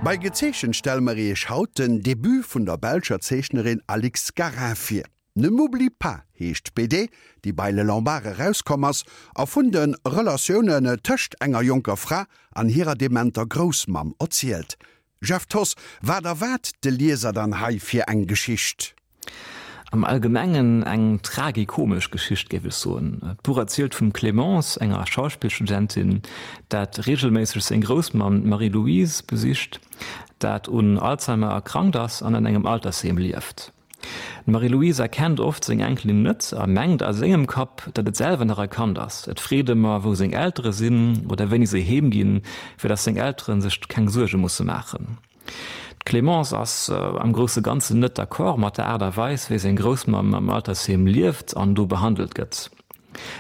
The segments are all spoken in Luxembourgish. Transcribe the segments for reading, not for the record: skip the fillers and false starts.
Bei Gezeechent stelle mer iech haut den Debut vun der belscher Zeechnerin Alix Garin vir. Ne m'oublie pas heescht d'BD, déi bei Le Lombard erauskomm ass a vun de Relatiounen tëscht enger jonker Fra an hirer dementer Groussmamm erzielt. Jeff Thoss, Wat erwaart de Lieser dann hei fir eng Geschicht? Am Allgemengen eng tragikomesch Geschicht, géif ech soen. D'Buch erzielt vum Clémence, enger Schauspillstudentin, dat reegelméisseg seng Groussmamm, d'Marie-Louise, besicht, dat un Alzheimer erkrankt ass an an engem Altersheem lieft. D'Marie-Louise erkennt oft seng Enkelin net a mengt a sengem Kapp, datt et selwer nach e Kand ass. Et freet ëmmer, wou seng Eltere sinn oder wéini se heem ginn, fir datt seng Eltere sech keng Suerge musse maachen. D'Clémence ass am grousse Ganzen net d'accord mat der Aart a Weis, wéi seng Groussmamm am Altersheem lieft an do behandelt gëtt.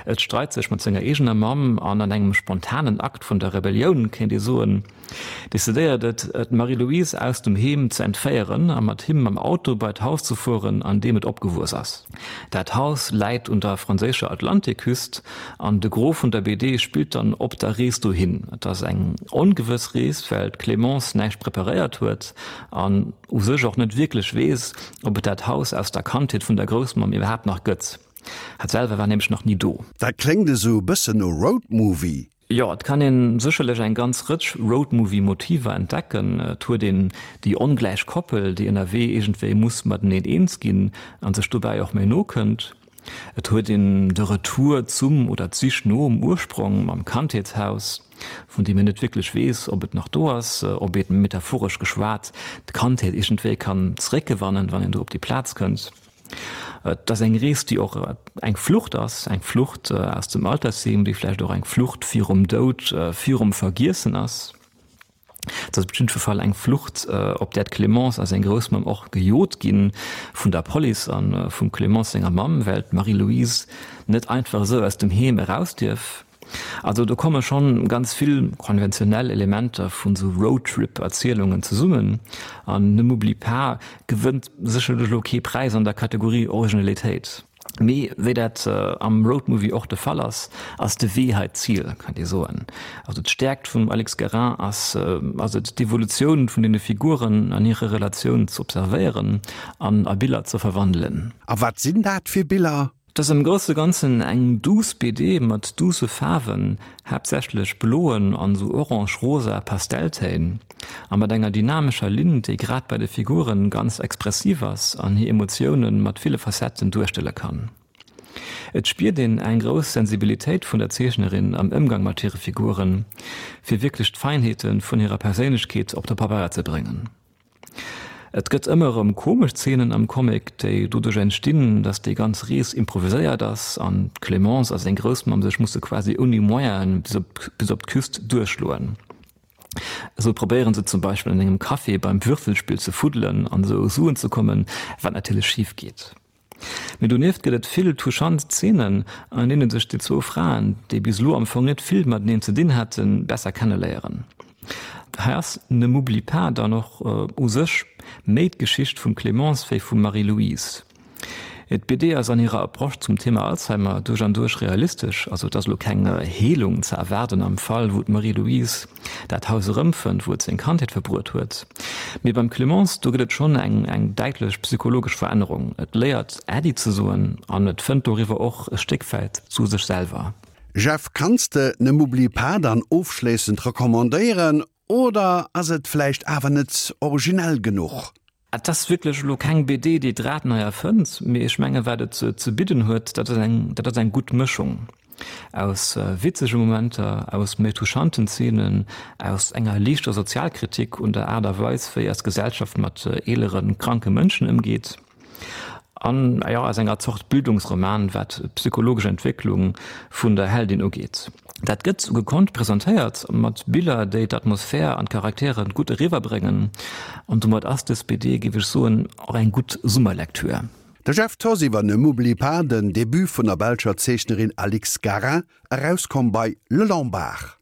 Et streit sech mat senger eegener Mamm an an engem spontanen Akt vun der Rebellioun, kéint ee soen, decidéiert et, d'Marie-Louise aus dem Heem ze entféieren a mat him mam Auto bei d'Haus ze fueren, an deem et opgewuess ass. Dat Haus läit un der franséischer Atlantikküst an de Gros vun der BD spillt dann op der Rees dohin. Et ass eng ongewëss Rees, well d'Clémence näischt preparéiert huet an u sech och net wierklech weess, ob et dat Haus aus der Kandheet vun der Groussmamm iwwerhaapt nach gëtt. Hat selwer war nämlech nach ni do. Dat kléngt esou e bëssen no Roadmovie. Jo, et kann een sécherlech eng ganz Rëtsch Roadmovie-Motiver entdecken. Et huet een déi ongläich Koppel, déi ënnerwee iergendwéi muss mateneen eens ginn an sech dobäi och méi no kënnt. Et huet een de Retour zum oder d'Sich nom Ursprong mam Kandheetshaus, vun deem een net wierklech weess, ob et nach do ass, ob een, metaphoresch geschwat, d'Kandheet iergendwéi kann zeréckgewannen, wann een do op déi Plaz kënnt. Et ass eng Rees, déi och eng Flucht ass, eng Flucht aus dem Altersheem, déi vläicht och eng Flucht virum Doud, virum Vergiessen ass. Et ass op jidde Fall eng Flucht, op där d'Clémence a seng Groussmamm och gejot gi vun der Police a vum Clémence senger Mamm, well d'Marie-Louise net einfach esou aus dem Heem eraus dierf. Also do komme schonn ganz vill konventionell Elementer vun sou Roadtrip-Erzielungen zesummen an Ne m'oublie pas gewënnt sécherlech elo kee Präis an der Kategorie Originalitéit. Mee wéi dat am Roadmovie och de Fall ass, ass de Wee hei d'Zil, kann ee soen. Also d'Stäerkt vum Alix Guérin ass ass et d'Evolutioun vun deene Figuren an hire Relatioun z'observéieren an a Biller ze verwandelen. A wat sinn dat fir Biller? Et ass am grousse Ganzen eng douce BD mat douce Faarwen, haaptsächlech bloen an sou orange-rosa Pastelltéin, a mat enger dynamescher Linn, déi grad bei de Figuren ganz expressiv ass an hir Emotiounen mat ville Facetten duerstelle kann. Et spiert een eng grouss Sensibilitéit vun der Zeechnerin am Ëmgang mat hire Figuren, fir wierklech d'Feinheete vun hirer Perséinlechkeet op de Pabeier ze bréngen. Et gëtt ëmmer erëm komesch Zeenen am Comic, déi doduerch entstinn, datt déi ganz Rees improviséiert ass an d'Clémence a seng Groussmamm sech musse quasi ouni Moyene bis op d'Küst duerchschloen. Esou probéiere se zum Beispill an engem Café beim Würfelspill ze fuddelen an esou u Suen ze kommen, wat natierlech schif geet. Mee donieft gëtt et vill touchant Zeenen, an deene sech déi zwou Fraen, déi bis elo am Fong net vill mateneen ze dinn haten, besser kenneléieren. Hei ass Ne m'oublie pas dann och u sech méi d'Geschicht vum Clémence wéi vum Marie-Louise. D'BD ass an hirer Approche zum Thema Alzheimer duerch an duerch realistesch, also et ass elo keng Heelung ze erwaarden am Fall wou d'Marie-Louise dat Haus erëmfënnt, wou et seng Kandheet verbruet huet. Mee beim Clémence, do gëtt et schonn eng eng däitlech psychologesch Verännerung. Et léiert Äddi ze soen an et fënnt doriwwer och e Stéck wäit zu sech selwer. Jeff, kanns de Ne m'oublie pas dann ofschléissend recommandéieren oder ass et vläicht awer net originell genuch? Et ass wierklech elo keng BD, déi d'Rad nei erfënnt, mee ech menge wat et ze bidden huet, dat ass eng, dat ass eng gutt Mëschung aus witzege Momenter, aus méi touchanten Zeenen, aus enger liichter Sozialkritik un der Aart a Weis, wéi eis Gesellschaft mat eeleren, kranke Mënschen ëmgeet. An, jo, aus enger Zort Bildungsroman, wat d'psychologesch Entwécklung vun der Heldin ugeet. Dat gëtt gekonnt presentéiert, mat Biller, déi d'Atmosphär an d'Charaktere gutt eriwwerbréngen. An domat ass dës BD, géif ech soen, och eng gutt Summerlektür. De Jeff Thoss iwwer Ne m'oublie pas, den Debut vun der belscher Zeechnerin Alix Garin, erauskomm bei Le Lombard.